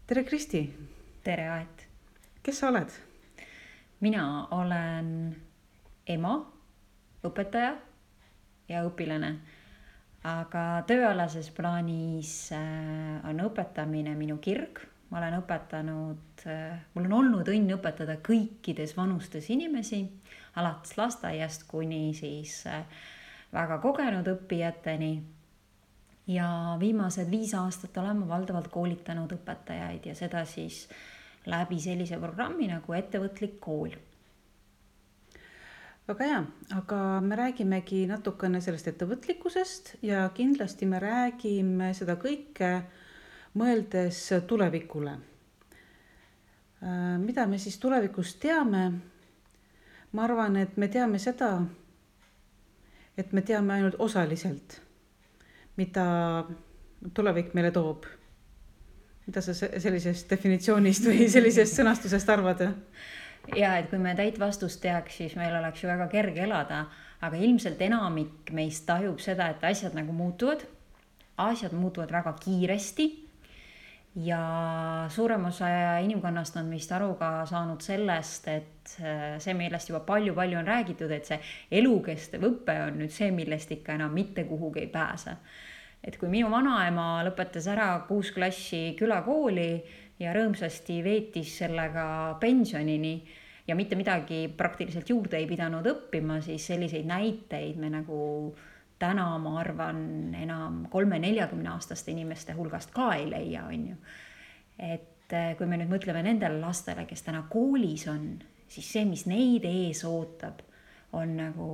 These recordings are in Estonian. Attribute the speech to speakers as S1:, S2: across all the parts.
S1: tere, Kristi!
S2: Tere, Aet!
S1: Kes sa oled?
S2: Mina olen ema, õpetaja ja õpilane. Aga tööalases plaanis on õpetamine minu kirg. Ma olen õpetanud, mul on olnud õnn õpetada kõikides vanustes inimesi, alates lasteaiast kuni siis väga kogenud õppijateni. Ja viimased 5 aastat olen ma valdavalt koolitanud õpetajaid ja seda siis läbi sellise programmi nagu Ettevõtlik kool.
S1: Väga hea, aga me räägimegi natukene sellest ettevõtlikkusest ja kindlasti me räägime seda kõike mõeldes tulevikule. Mida me siis tulevikus teame? Ma arvan, et me teame seda, et me teame ainult osaliselt, mida tulevik meile toob. Mida sa sellisest definitsioonist või sellisest sõnastusest arvad?
S2: Ja, et kui me täit vastust teaks, siis meil oleks ju väga kerge elada, aga ilmselt enamik meist tajub seda, et asjad nagu muutuvad. Asjad muutuvad väga kiiresti ja suurem osa inimkonnast on vist aru ka saanud sellest, et see, millest juba palju on räägitud, et see elukestev õpe on nüüd see, millest ikka enam mitte kuhugi ei pääse. Et kui minu vanaema lõpetas ära 6 klassi külakooli ja rõõmsasti veetis sellega pensionini ja mitte midagi praktiliselt juurde ei pidanud õppima, siis selliseid näiteid me nagu täna, ma arvan, enam 30-40 aastaste inimeste hulgast ka ei leia, on ju. Et kui me nüüd mõtleme nendele lastele, kes täna koolis on, siis see, mis neid ees ootab, on nagu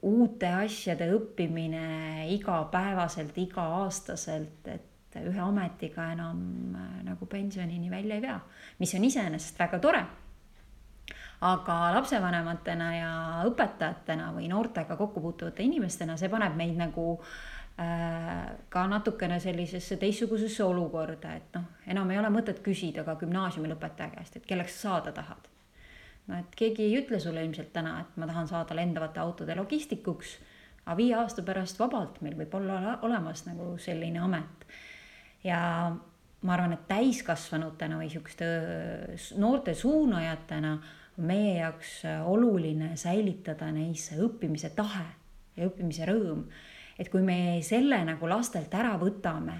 S2: uute asjade õppimine igapäevaselt, iga-aastaselt, et ühe ametiga enam nagu pensionini välja ei pea, mis on iseenesest väga tore. Aga lapsevanematena ja õpetajatena või noortega kokkupuutuvate inimestena see paneb meid nagu ka natukene sellisesse teistsugusesse olukorda, et enam ei ole mõtet küsida ka gümnaasiumi lõpetaja käest, et kelleks sa saada tahad. Et keegi ei ütle sulle ilmselt täna, et ma tahan saada lendavate autode logistikuks, aga 5 aasta pärast vabalt meil võib olla olemas nagu selline amet. Ja ma arvan, et täiskasvanutena või sihukeste noorte suunajatena on meie jaoks oluline säilitada neisse õppimise tahe ja õppimise rõõm. Et kui me selle nagu lastelt ära võtame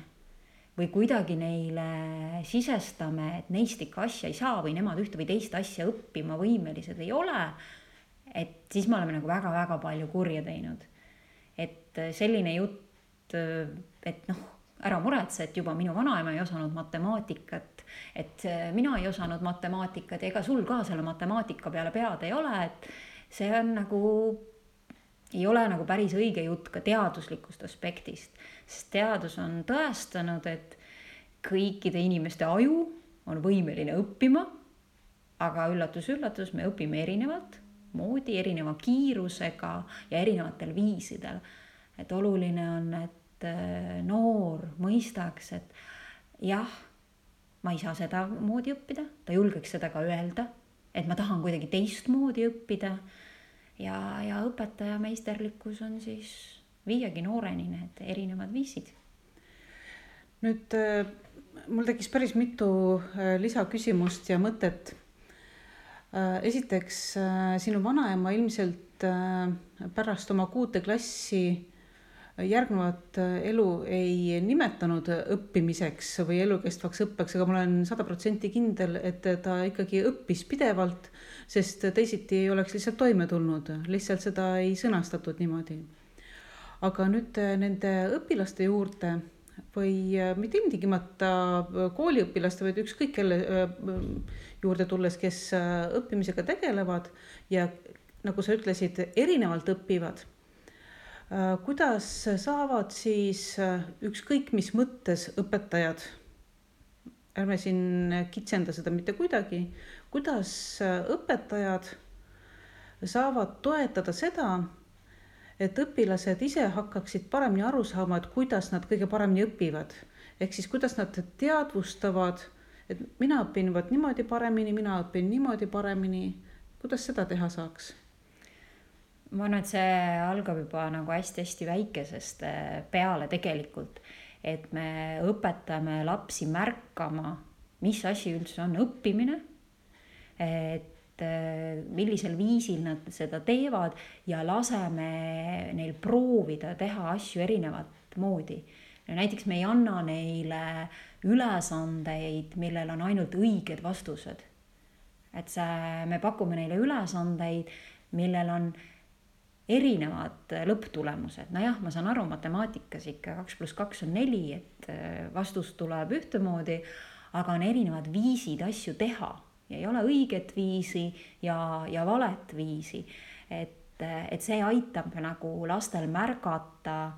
S2: või kuidagi neile sisestame, et neist ikka asja ei saa või nemad ühte või teist asja õppima võimelised ei ole, et siis me oleme nagu väga palju kurja teinud. Et selline jutt, et ära muretse, et juba minu vanaema ei osanud matemaatikat, et mina ei osanud matemaatikat ja ega sul ka selle matemaatika peale pead ei ole, et see on nagu, ei ole nagu päris õige jutt ka teaduslikust aspektist, sest teadus on tõestanud, et kõikide inimeste aju on võimeline õppima, aga üllatus, me õpime erinevalt moodi, erineva kiirusega ja erinevatel viisidel. Et oluline on, et noor mõistaks, et jah, ma ei saa seda moodi õppida, ta julgeks seda ka öelda, et ma tahan kuidagi teist moodi õppida ja õpetaja meisterlikkus on siis viiagi nooreni need erinevad viisid.
S1: Nüüd mul tekkis päris mitu lisaküsimust ja mõtet. Esiteks, sinu vanaema ilmselt pärast oma 6. klassi järgnevat elu ei nimetanud õppimiseks või elukestvaks õppeks, aga ma olen 100% kindel, et ta ikkagi õppis pidevalt, sest teisiti ei oleks lihtsalt toime tulnud, lihtsalt seda ei sõnastatud niimoodi. Aga nüüd nende õpilaste juurde või mitte ilmtingimata kooliõpilaste, vaid ükskõik kelle juurde tulles, kes õppimisega tegelevad ja nagu sa ütlesid, erinevalt õppivad. Kuidas saavad siis ükskõik mis mõttes õpetajad, ärme siin kitsenda seda mitte kuidagi, kuidas õpetajad saavad toetada seda, et õpilased ise hakkaksid paremini aru saama, et kuidas nad kõige paremini õpivad. Ehk siis kuidas nad teadvustavad, et mina õpin niimoodi paremini, mina õpin niimoodi paremini. Kuidas seda teha saaks?
S2: Ma arvan, et see algab juba nagu hästi väikesest peale tegelikult, et me õpetame lapsi märkama mis asi üldse on õppimine, et millisel viisil nad seda teevad ja laseme neil proovida teha asju erinevat moodi. Näiteks me ei anna neile ülesandeid, millel on ainult õiged vastused. Et me pakume neile ülesandeid, millel on erinevad lõpptulemused. Nojah, ma saan aru, matemaatikas ikka 2 + 2 on 4, et vastus tuleb ühtemoodi, aga on erinevad viisid asju teha ja ei ole õiget viisi ja valet viisi. Et see aitab nagu lastel märgata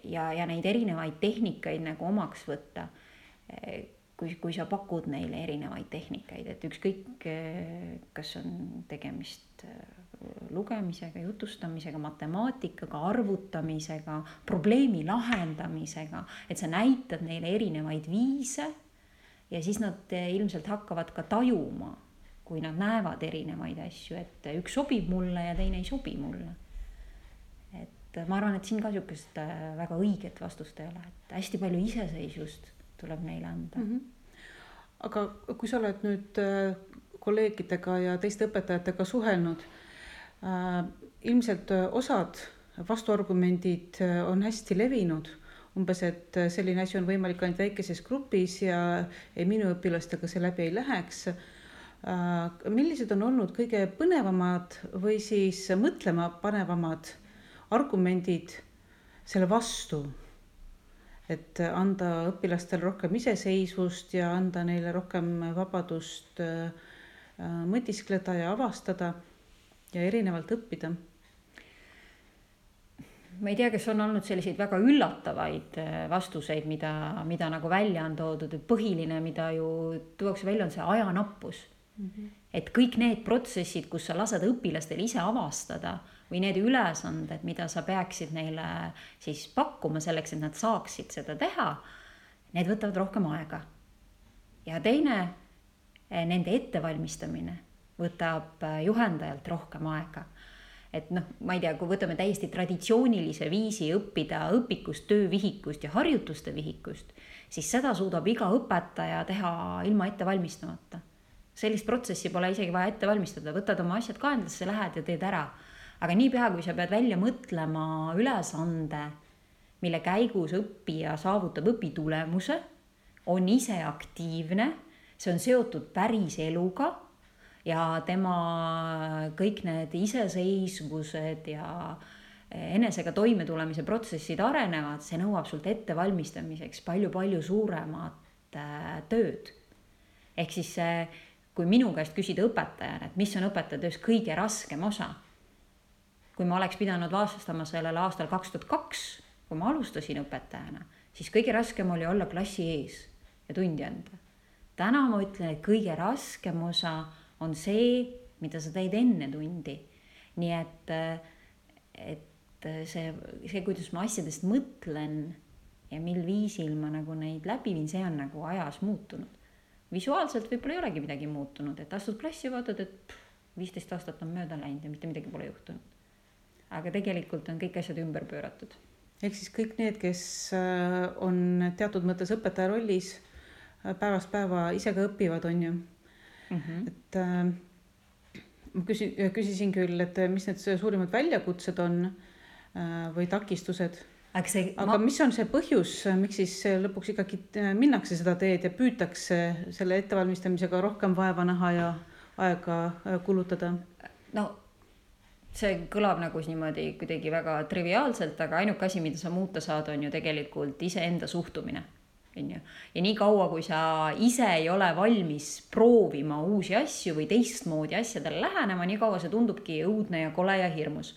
S2: ja neid erinevaid tehnikaid nagu omaks võtta. Kui sa pakud neile erinevaid tehnikaid, et ükskõik, kas on tegemist lugemisega, jutustamisega, matemaatikaga, arvutamisega, probleemi lahendamisega, et sa näitad neile erinevaid viise ja siis nad ilmselt hakkavad ka tajuma, kui nad näevad erinevaid asju, et üks sobib mulle ja teine ei sobi mulle. Et ma arvan, et siin ka niisugust väga õiget vastust ei ole, et hästi palju iseseisvust tuleb neile anda.
S1: Aga kui sa oled nüüd kolleegidega ja teiste õpetajatega suhelnud, ilmselt osad vastuargumendid on hästi levinud, umbes, et selline asi on võimalik ainult väikeses grupis ja minu õpilastega see läbi ei läheks. Millised on olnud kõige põnevamad või siis mõtlema panevamad argumendid selle vastu, et anda õpilastele rohkem iseseisvust ja anda neile rohkem vabadust mõtiskleda ja avastada ja erinevalt õppida?
S2: Ma ei tea, kas on olnud selliseid väga üllatavaid vastuseid, mida nagu välja on toodud, et põhiline, mida ju tuuakse välja, on see ajanappus. Et kõik need protsessid, kus sa lased õpilastel ise avastada või need ülesanded, mida sa peaksid neile siis pakkuma selleks, et nad saaksid seda teha, need võtavad rohkem aega. Ja teine, nende ettevalmistamine võtab juhendajalt rohkem aega. Et ma ei tea, kui võtame täiesti traditsioonilise viisi õppida õpikust, töövihikust ja harjutuste vihikust, siis seda suudab iga õpetaja teha ilma ette valmistamata. Sellist protsessi pole isegi vaja ette valmistada, võtad oma asjad kaenlasse, lähed ja teed ära. Aga niipea, kui sa pead välja mõtlema ülesande, mille käigus õppija saavutab õpitulemuse, on ise aktiivne, see on seotud päris eluga, ja tema kõik need iseseisvused ja enesega toimetulemise protsessid arenevad, see nõuab sult ettevalmistamiseks palju suuremat tööd. Ehk siis kui minu käest küsida õpetajana, et mis on õpetajatöös kõige raskem osa, kui ma oleks pidanud vastama sellele aastal 2002, kui ma alustasin õpetajana, siis kõige raskem oli olla klassi ees ja tundi anda. Täna ma ütlen, et kõige raskem osa on see, mida sa teed enne tundi. Nii et see, kuidas ma asjadest mõtlen ja mil viisil ma nagu neid läbi viin, see on nagu ajas muutunud. Visuaalselt võib-olla ei olegi midagi muutunud, et astud klassi ja vaatad, et 15 aastat on mööda läinud ja mitte midagi pole juhtunud. Aga tegelikult on kõik asjad ümber pööratud.
S1: Ehk siis kõik need, kes on teatud mõttes õpetaja rollis, päevast päeva ise ka õpivad, on ju. Et ma küsisin küll, et mis need suurimad väljakutsed on või takistused, aga mis on see põhjus, miks siis lõpuks ikkagi minnakse seda teed ja püütakse selle ettevalmistamisega rohkem vaeva näha ja aega kulutada?
S2: No see kõlab nagu niimoodi kuidagi väga triviaalselt, aga ainuke asi, mida sa muuta saad, on ju tegelikult iseenda suhtumine. Ja nii kaua, kui sa ise ei ole valmis proovima uusi asju või teistmoodi asjadele lähenema, nii kaua see tundubki õudne ja kole ja hirmus.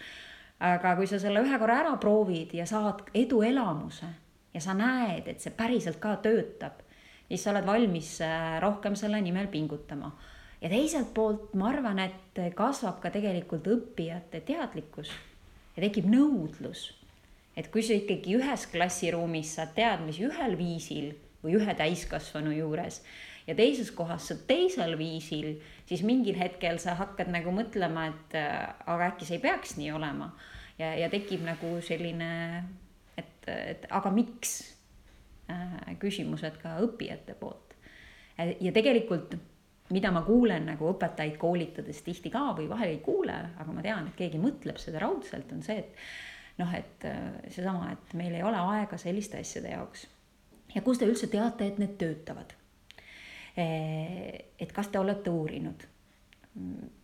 S2: Aga kui sa selle ühe korra ära proovid ja saad eduelamuse ja sa näed, et see päriselt ka töötab, siis sa oled valmis rohkem selle nimel pingutama. Ja teiselt poolt ma arvan, et kasvab ka tegelikult õppijate teadlikkus ja tekib nõudlus. Et kui sa ikkagi ühes klassiruumis saad teadmisi ühel viisil või ühe täiskasvanu juures ja teises kohas saad teisel viisil, siis mingil hetkel sa hakkad nagu mõtlema, et aga äkki see ei peaks nii olema. Ja tekib nagu selline, et aga miks küsimused ka õppijate poolt. ja tegelikult, mida ma kuulen nagu õpetajaid koolitades tihti ka või vahel ei kuule, aga ma tean, et keegi mõtleb seda raudselt, on see, et seesama, et meil ei ole aega selliste asjade jaoks. Ja kus te üldse teate, et need töötavad? Et kas te olete uurinud?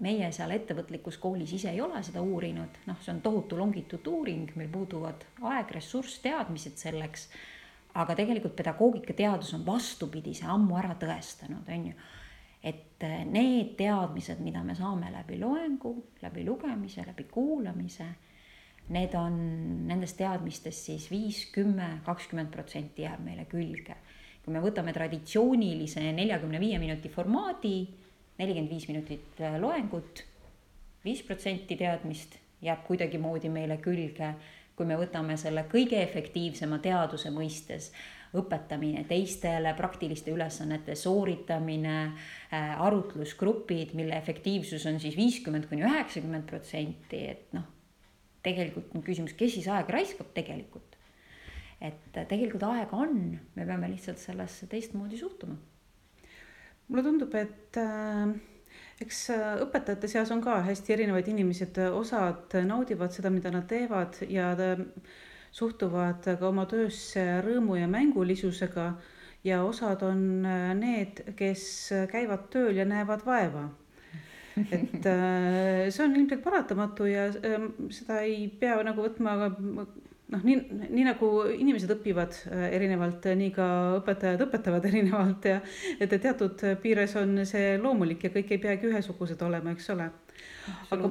S2: Meie seal ettevõtlikus koolis ise ei ole seda uurinud, see on tohutu longituuduuring, meil puuduvad aeg, ressurss, teadmised selleks, aga tegelikult pedagoogikateadus on vastupidise ammu ära tõestanud, on ju, et need teadmised, mida me saame läbi loengu, läbi lugemise, läbi kuulamise, need on nendest teadmistest siis 5, 10, 20% jääb meile külge. Kui me võtame traditsioonilise 45 minuti formaadi, 45 minutit loengut, 5% teadmist jääb kuidagi moodi meile külge. Kui me võtame selle kõige efektiivsema teaduse mõistes, õpetamine teistele, praktiliste ülesannete sooritamine, arutlusgrupid, mille efektiivsus on siis 50–90%, et tegelikult on küsimus, kes siis aega raiskab tegelikult. Et tegelikult aega on, me peame lihtsalt sellesse teistmoodi suhtuma.
S1: Mulle tundub, et eks õpetajate seas on ka hästi erinevaid inimesed, osad naudivad seda, mida nad teevad ja suhtuvad ka oma töösse rõõmu ja mängulisusega ja osad on need, kes käivad tööl ja näevad vaeva. Et see on ilmselt paratamatu ja seda ei pea nagu võtma, nii nagu inimesed õpivad erinevalt, nii ka õpetajad õpetavad erinevalt ja et teatud piires on see loomulik ja kõik ei peagi ühesugused olema, eks ole. Aga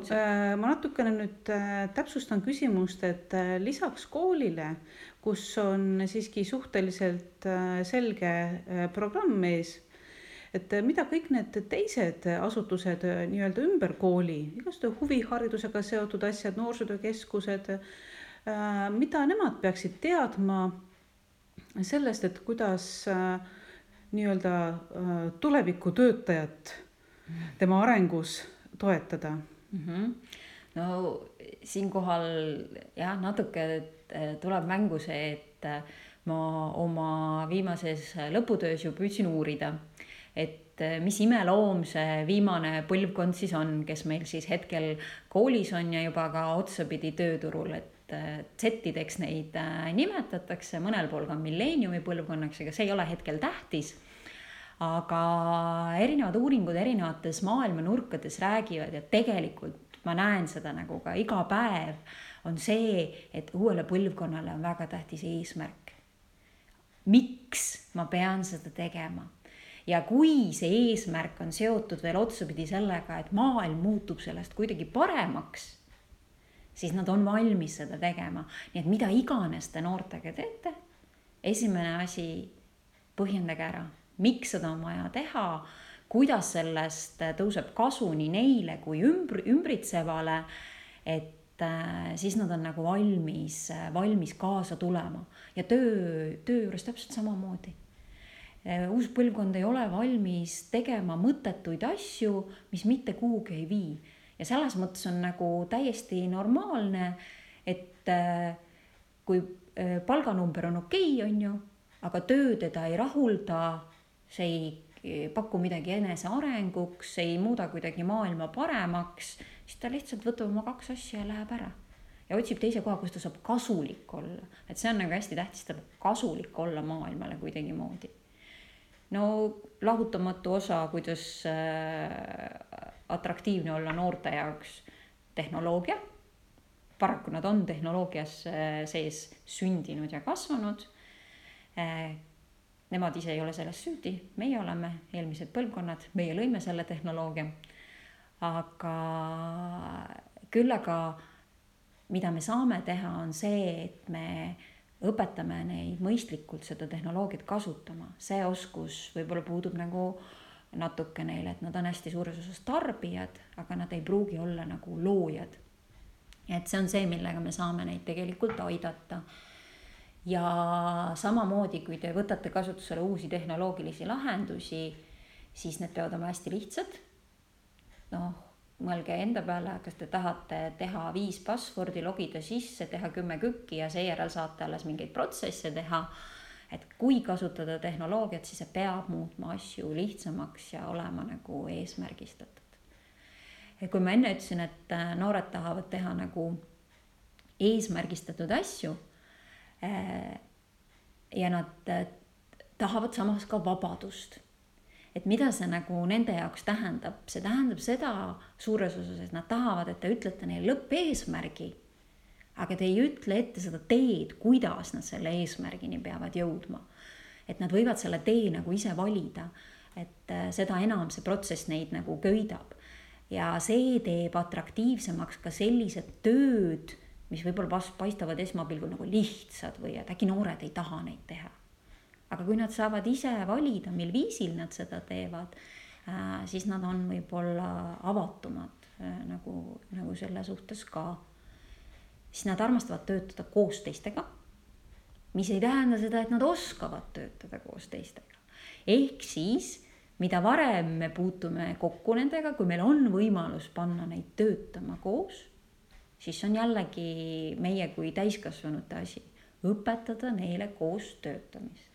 S1: ma natukene nüüd täpsustan küsimust, et lisaks koolile, kus on siiski suhteliselt selge programm ees, et mida kõik need teised asutused nii-öelda ümber kooli, igast huviharidusega seotud asjad, noorsootöökeskused, mida nemad peaksid teadma sellest, et kuidas nii-öelda tuleviku töötajat tema arengus toetada?
S2: No siinkohal jah, natuke tuleb mängu see, et ma oma viimases lõputöös ju püüdsin uurida, et mis imeloom see viimane põlvkond siis on, kes meil siis hetkel koolis on ja juba ka otsapidi tööturul, et Z-ideks neid nimetatakse, mõnel pool ka milleeniumi põlvkonnaks, aga see ei ole hetkel tähtis. Aga erinevad uuringud erinevates maailma nurkades räägivad ja tegelikult ma näen seda nagu ka iga päev on see, et uuele põlvkonnale on väga tähtis eesmärk. Miks ma pean seda tegema? Ja kui see eesmärk on seotud veel otsapidi sellega, et maailm muutub sellest kuidagi paremaks, siis nad on valmis seda tegema. Nii et mida iganes te noortega teete, esimene asi, põhjendage ära, miks seda on vaja teha, kuidas sellest tõuseb kasu nii neile kui ümbritsevale, et siis nad on nagu valmis kaasa tulema. Ja töö juures täpselt samamoodi. Uus põlvkond ei ole valmis tegema mõttetuid asju, mis mitte kuhugi ei vii. Ja selles mõttes on nagu täiesti normaalne, et kui palganumber on okei, on ju, aga töö teda ei rahulda, see ei paku midagi enese arenguks, see ei muuda kuidagi maailma paremaks, siis ta lihtsalt võtab oma 2 asja ja läheb ära. Ja otsib teise koha, kus ta saab kasulik olla. Et see on nagu hästi tähtis, ta peab kasulik olla maailmale kuidagi moodi. No lahutamatu osa, kuidas atraktiivne olla noorte jaoks tehnoloogia. Paraku nad on tehnoloogias sees sündinud ja kasvanud. Nemad ise ei ole selles süüdi, meie oleme eelmised põlvkonnad, meie lõime selle tehnoloogia. Aga küll aga mida me saame teha on see, et me õpetame neid mõistlikult seda tehnoloogiat kasutama. See oskus võib-olla puudub nagu natuke neile, et nad on hästi suures osas tarbijad, aga nad ei pruugi olla nagu loojad. Et see on see, millega me saame neid tegelikult aidata. Ja samamoodi, kui te võtate kasutusele uusi tehnoloogilisi lahendusi, siis need peavad olema hästi lihtsad. Mõelge enda peale, kas te tahate teha 5 passwordi, logida sisse, teha 10 kükki ja seejärel saate alles mingeid protsesse teha. et kui kasutada tehnoloogiat, siis see peab muutma asju lihtsamaks ja olema nagu eesmärgistatud. Kui ma enne ütlesin, et noored tahavad teha nagu eesmärgistatud asju ja nad tahavad samas ka vabadust. Et mida see nagu nende jaoks tähendab? See tähendab seda suures osas, et nad tahavad, et te ütlete neile lõppeesmärgi, aga te ei ütle ette seda teed, kuidas nad selle eesmärgini peavad jõudma. Et nad võivad selle tee nagu ise valida, et seda enam see protsess neid nagu köidab. Ja see teeb atraktiivsemaks ka sellised tööd, mis võib-olla paistavad esmapilgul nagu lihtsad või et äkki noored ei taha neid teha. Aga kui nad saavad ise valida, mil viisil nad seda teevad, siis nad on võib-olla avatumad nagu selle suhtes ka. Siis nad armastavad töötada koos teistega, mis ei tähenda seda, et nad oskavad töötada koos teistega. Ehk siis mida varem me puutume kokku nendega, kui meil on võimalus panna neid töötama koos, siis on jällegi meie kui täiskasvanute asi õpetada neile koos töötamist.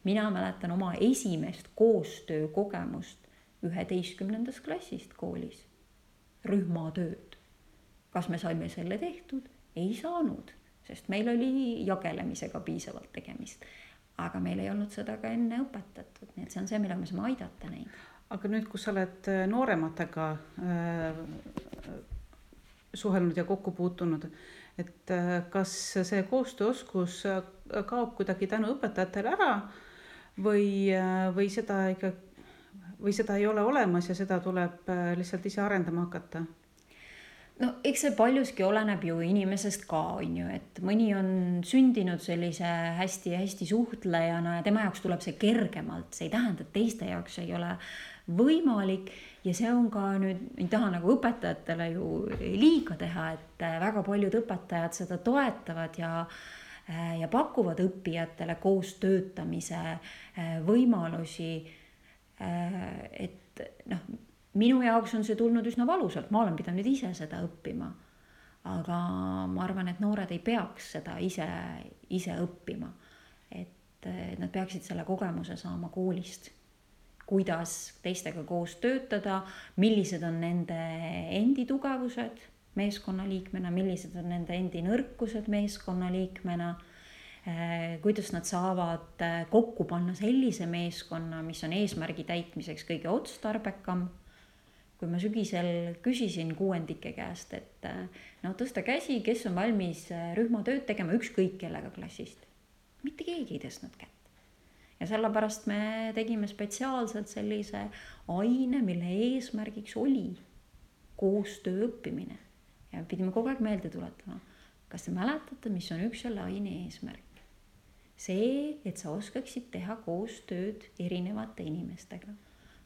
S2: Mina mäletan oma esimest koostöökogemust 11. klassist koolis. Rühmatööd. Kas me saime selle tehtud? Ei saanud, sest meil oli jagelemisega piisavalt tegemist. Aga meil ei olnud seda ka enne õpetatud, nii et see on see, millega me saame aidata neid.
S1: Aga nüüd, kus sa oled noorematega suhelnud ja kokku puutunud, et kas see koostööoskus kaob kuidagi tänu õpetajatele ära või seda ei ole olemas ja seda tuleb lihtsalt ise arendama hakata?
S2: No eks see paljuski oleneb ju inimesest ka, on ju, et mõni on sündinud sellise hästi suhtlejana ja tema jaoks tuleb see kergemalt, see ei tähenda, et teiste jaoks ei ole võimalik ja see on ka nüüd, ei taha nagu õpetajatele ju liiga teha, et väga paljud õpetajad seda toetavad ja pakuvad õppijatele koos töötamise võimalusi, et minu jaoks on see tulnud üsna valusalt, ma olen pidanud ise seda õppima, aga ma arvan, et noored ei peaks seda ise õppima, et nad peaksid selle kogemuse saama koolist, kuidas teistega koos töötada, millised on nende endi tugevused meeskonnaliikmena, millised on nende endi nõrkused meeskonnaliikmena, kuidas nad saavad kokku panna sellise meeskonna, mis on eesmärgi täitmiseks kõige otstarbekam. Kui ma sügisel küsisin kuuendike käest, et tõsta käsi, kes on valmis rühmatööd tegema ükskõik kellega klassist. Mitte keegi ei tõstnud kätt. Ja sellepärast me tegime spetsiaalselt sellise aine, mille eesmärgiks oli koostöö õppimine. Ja pidime kogu aeg meelde tuletama. Kas te mäletate, mis on üks selle aine eesmärk? See, et sa oskaksid teha koostööd erinevate inimestega.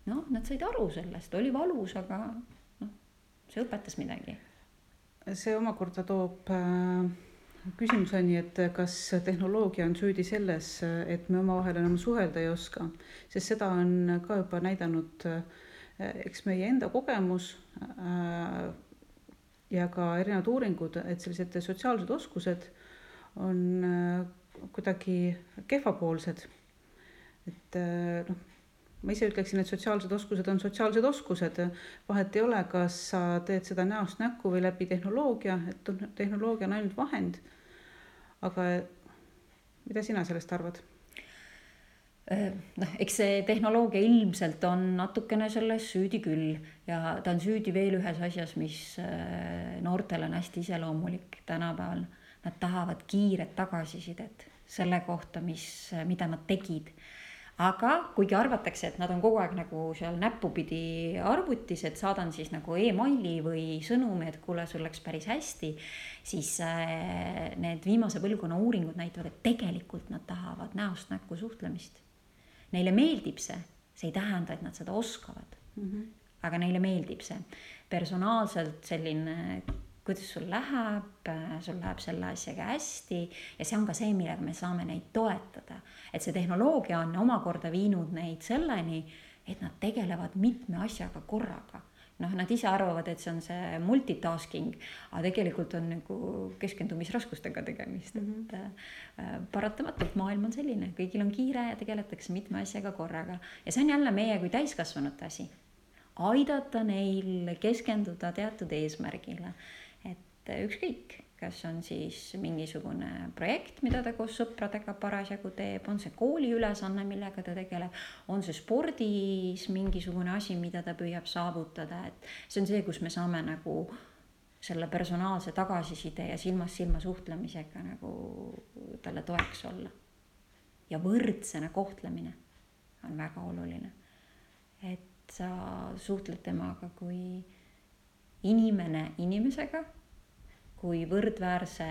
S2: Nad said aru sellest, oli valus, aga see õpetas midagi.
S1: See omakorda toob küsimuseni, et kas tehnoloogia on süüdi selles, et me omavahel enam suhelda ei oska, sest seda on ka juba näidanud eks meie enda kogemus ja ka erinevad uuringud, et sellised sotsiaalsed oskused on kuidagi kehvapoolsed. Et ma ise ütleksin, et sotsiaalsed oskused on sotsiaalsed oskused. Vahet ei ole, kas sa teed seda näost näkku või läbi tehnoloogia, et tehnoloogia on ainult vahend. Aga mida sina sellest arvad?
S2: Eks see tehnoloogia ilmselt on natukene selles süüdi küll ja ta on süüdi veel ühes asjas, mis noortele on hästi iseloomulik tänapäeval. Nad tahavad kiiret tagasisidet selle kohta, mida nad tegid. Aga kuigi arvatakse, et nad on kogu aeg nagu seal näppupidi arvutis, et saadan siis nagu e-maili või sõnumi, et kuule, sul läks päris hästi, siis need viimase põlvkonna uuringud näitavad, et tegelikult nad tahavad näost näkku suhtlemist. Neile meeldib see ei tähenda, et nad seda oskavad, aga neile meeldib see. Personaalselt selline, kuidas sul läheb selle asjaga hästi ja see on ka see, millega me saame neid toetada. Et see tehnoloogia on omakorda viinud neid selleni, et nad tegelevad mitme asjaga korraga nad ise arvavad, et see on see multitasking, aga tegelikult on nagu keskendumisraskustega tegemist, et paratamatult maailm on selline, kõigil on kiire ja tegeletakse mitme asjaga korraga ja see on jälle meie kui täiskasvanute asi, aidata neil keskenduda teatud eesmärgile, et ükskõik, kas on siis mingisugune projekt, mida ta koos sõpradega parasjagu teeb, on see kooli ülesanne, millega ta tegeleb, on see spordis mingisugune asi, mida ta püüab saavutada, et see on see, kus me saame nagu selle personaalse tagasiside ja silmast silma suhtlemisega nagu talle toeks olla. Ja võrdsena kohtlemine on väga oluline, et sa suhtled temaga kui inimene inimesega, kui võrdväärse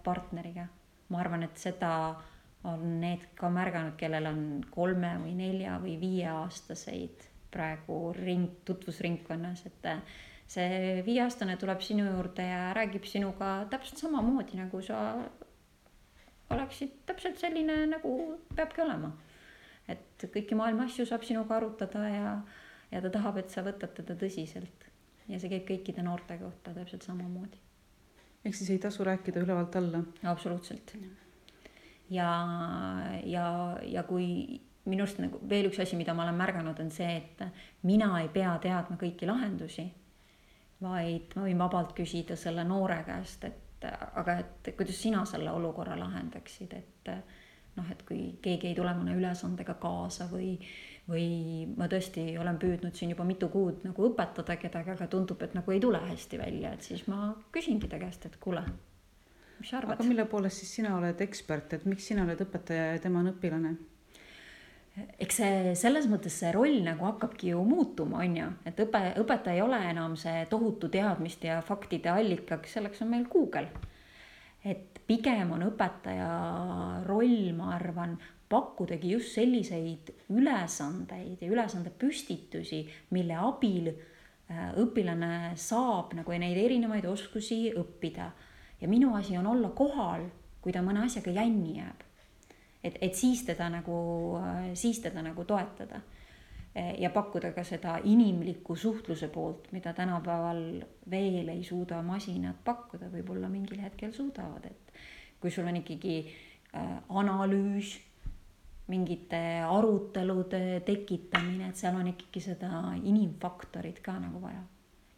S2: partneriga. Ma arvan, et seda on need ka märganud, kellel on 3 või 4 või 5 aastaseid praegu tutvusringkonnas, et see 5-aastane tuleb sinu juurde ja räägib sinuga täpselt samamoodi, nagu sa oleksid täpselt selline, nagu peabki olema. Et kõiki maailma asju saab sinuga arutada ja ta tahab, et sa võtad teda tõsiselt. Ja see käib kõikide noorte kohta täpselt samamoodi.
S1: Ehk siis ei tasu rääkida ülevalt alla.
S2: Absoluutselt. Ja kui minust nagu veel üks asi, mida ma olen märganud, on see, et mina ei pea teadma kõiki lahendusi, vaid ma võin vabalt küsida selle noore käest, aga kuidas sina selle olukorra lahendaksid, et kui keegi ei tule mõne ülesandega kaasa või ma tõesti olen püüdnud siin juba mitu kuud nagu õpetada kedagi, aga tundub, et nagu ei tule hästi välja, et siis ma küsingi ta käest, et kuule, mis sa arvad?
S1: Aga mille poolest siis sina oled ekspert, et miks sina oled õpetaja ja tema on õpilane?
S2: Eks see selles mõttes see roll nagu hakkabki ju muutuma, on ju, et õpetaja ei ole enam see tohutu teadmist ja faktide allikaks, selleks on meil Google. Et pigem on õpetaja roll, ma arvan, pakkudagi just selliseid ülesandeid ja ülesande püstitusi, mille abil õpilane saab nagu neid erinevaid oskusi õppida. Ja minu asi on olla kohal, kui ta mõne asjaga jänni jääb. Et siis teda nagu toetada ja pakkuda ka seda inimliku suhtluse poolt, mida tänapäeval veel ei suuda masinad pakkuda, võib-olla mingil hetkel suudavad, et kui sul on ikkagi analüüs, mingite arutelude tekitamine, et seal on ikkagi seda inimfaktorit ka nagu vaja.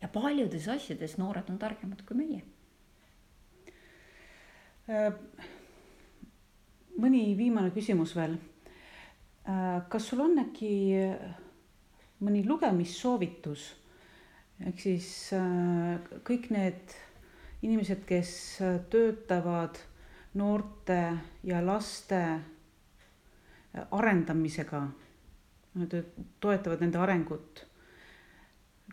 S2: Ja paljudes asjades noored on targemad kui meie.
S1: Mõni viimane küsimus veel. Kas sul on äkki mõni lugemissoovitus? Ehk siis kõik need inimesed, kes töötavad noorte ja laste arendamisega, toetavad nende arengut.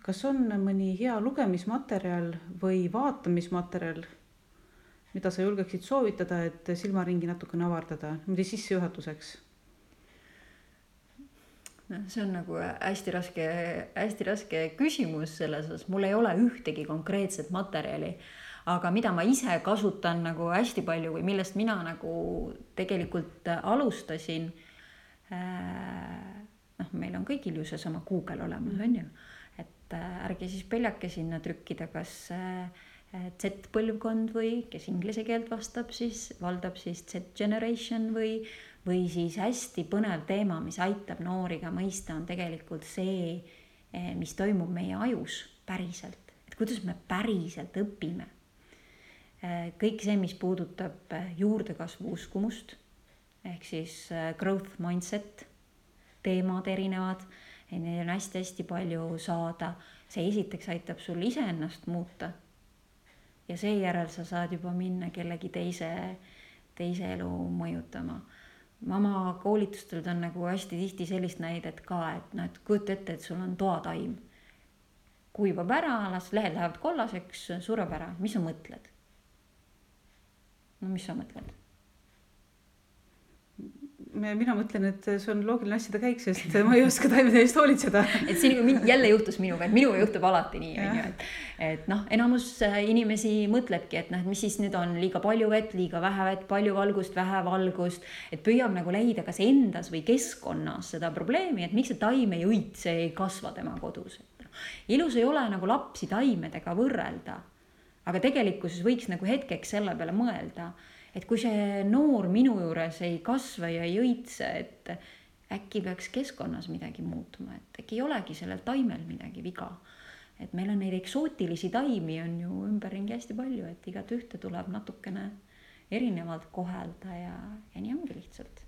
S1: Kas on mõni hea lugemismaterjal või vaatamismaterjal, mida sa julgeksid soovitada, et silmaringi natukene avardada, mida sissejuhatuseks?
S2: See on nagu hästi raske küsimus selles osas. Mul ei ole ühtegi konkreetset materjali, aga mida ma ise kasutan nagu hästi palju või millest mina nagu tegelikult alustasin, meil on kõigil ju seesama Google olemas, on ju, et ärge siis peljake sinna trükkida, kas Z-põlvkond või kes inglise keelt valdab siis Z-generation või siis hästi põnev teema, mis aitab nooriga mõista, on tegelikult see, mis toimub meie ajus päriselt, et kuidas me päriselt õpime. Kõik see, mis puudutab juurdekasvu uskumust, ehk siis growth mindset, teemad erinevad, neid on hästi palju saada. See esiteks aitab sul iseennast muuta ja seejärel sa saad juba minna kellegi teise elu mõjutama. Ma oma koolitustel on nagu hästi tihti sellist näidet ka, et kujuta ette, et sul on toataim. Kuivab ära, lehed lähevad kollaseks, sureb ära. Mis sa mõtled? No mis sa mõtled?
S1: Mina mõtlen, et see on loogiline asjade käik, sest ma ei oska taimede eest hoolitseda.
S2: Et see jälle juhtus minuga, et minuga juhtub alati nii. Et enamus inimesi mõtlebki, et mis siis nüüd on liiga palju vett, liiga vähe vett, palju valgust, vähe valgust. Et püüab nagu leida kas endas või keskkonnas seda probleemi, et miks see taim ei õitse, ei kasva tema kodus. ilus ei ole nagu lapsi taimedega võrrelda, aga tegelikkuses võiks nagu hetkeks selle peale mõelda, et kui see noor minu juures ei kasva ja ei õitse, et äkki peaks keskkonnas midagi muutuma, et äkki ei olegi sellel taimel midagi viga. Et meil on neid eksootilisi taimi on ju ümberringi hästi palju, et igat ühte tuleb natukene erinevalt kohelda ja nii ongi lihtsalt.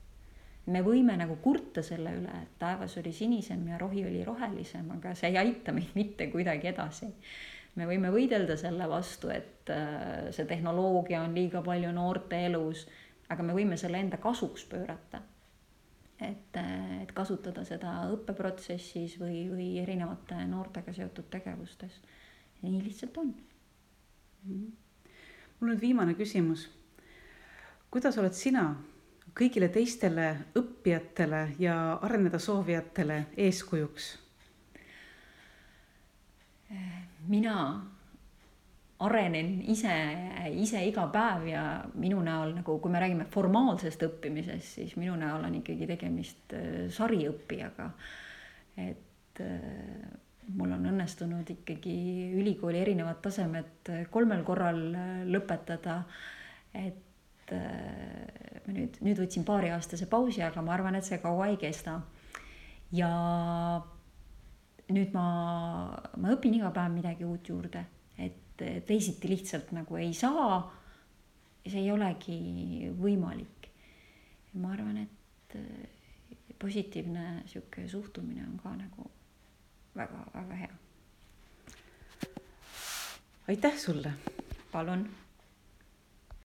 S2: Me võime nagu kurta selle üle, et taevas oli sinisem ja rohi oli rohelisem, aga see ei aita meid mitte kuidagi edasi. Me võime võidelda selle vastu, et see tehnoloogia on liiga palju noorte elus, aga me võime selle enda kasuks pöörata. Et kasutada seda õppeprotsessis või erinevate noortega seotud tegevustes. Nii lihtsalt on.
S1: Mul on viimane küsimus. Kuidas oled sina kõigile teistele õppijatele ja areneda soovijatele eeskujuks?
S2: Mina arenen ise iga päev ja minu näol, nagu kui me räägime formaalsest õppimisest, siis minu näol on ikkagi tegemist sariõppijaga. Et mul on õnnestunud ikkagi ülikooli erinevad tasemed 3 korral lõpetada. Et ma nüüd võtsin 2-aastase pausi, aga ma arvan, et see kaua ei kesta. Ja nüüd ma õpin iga päev midagi uut juurde. Et teisiti lihtsalt nagu ei saa ja see ei olegi võimalik. Ma arvan, et positiivne siuke suhtumine on ka nagu väga, väga hea.
S1: Aitäh sulle!
S2: Palun!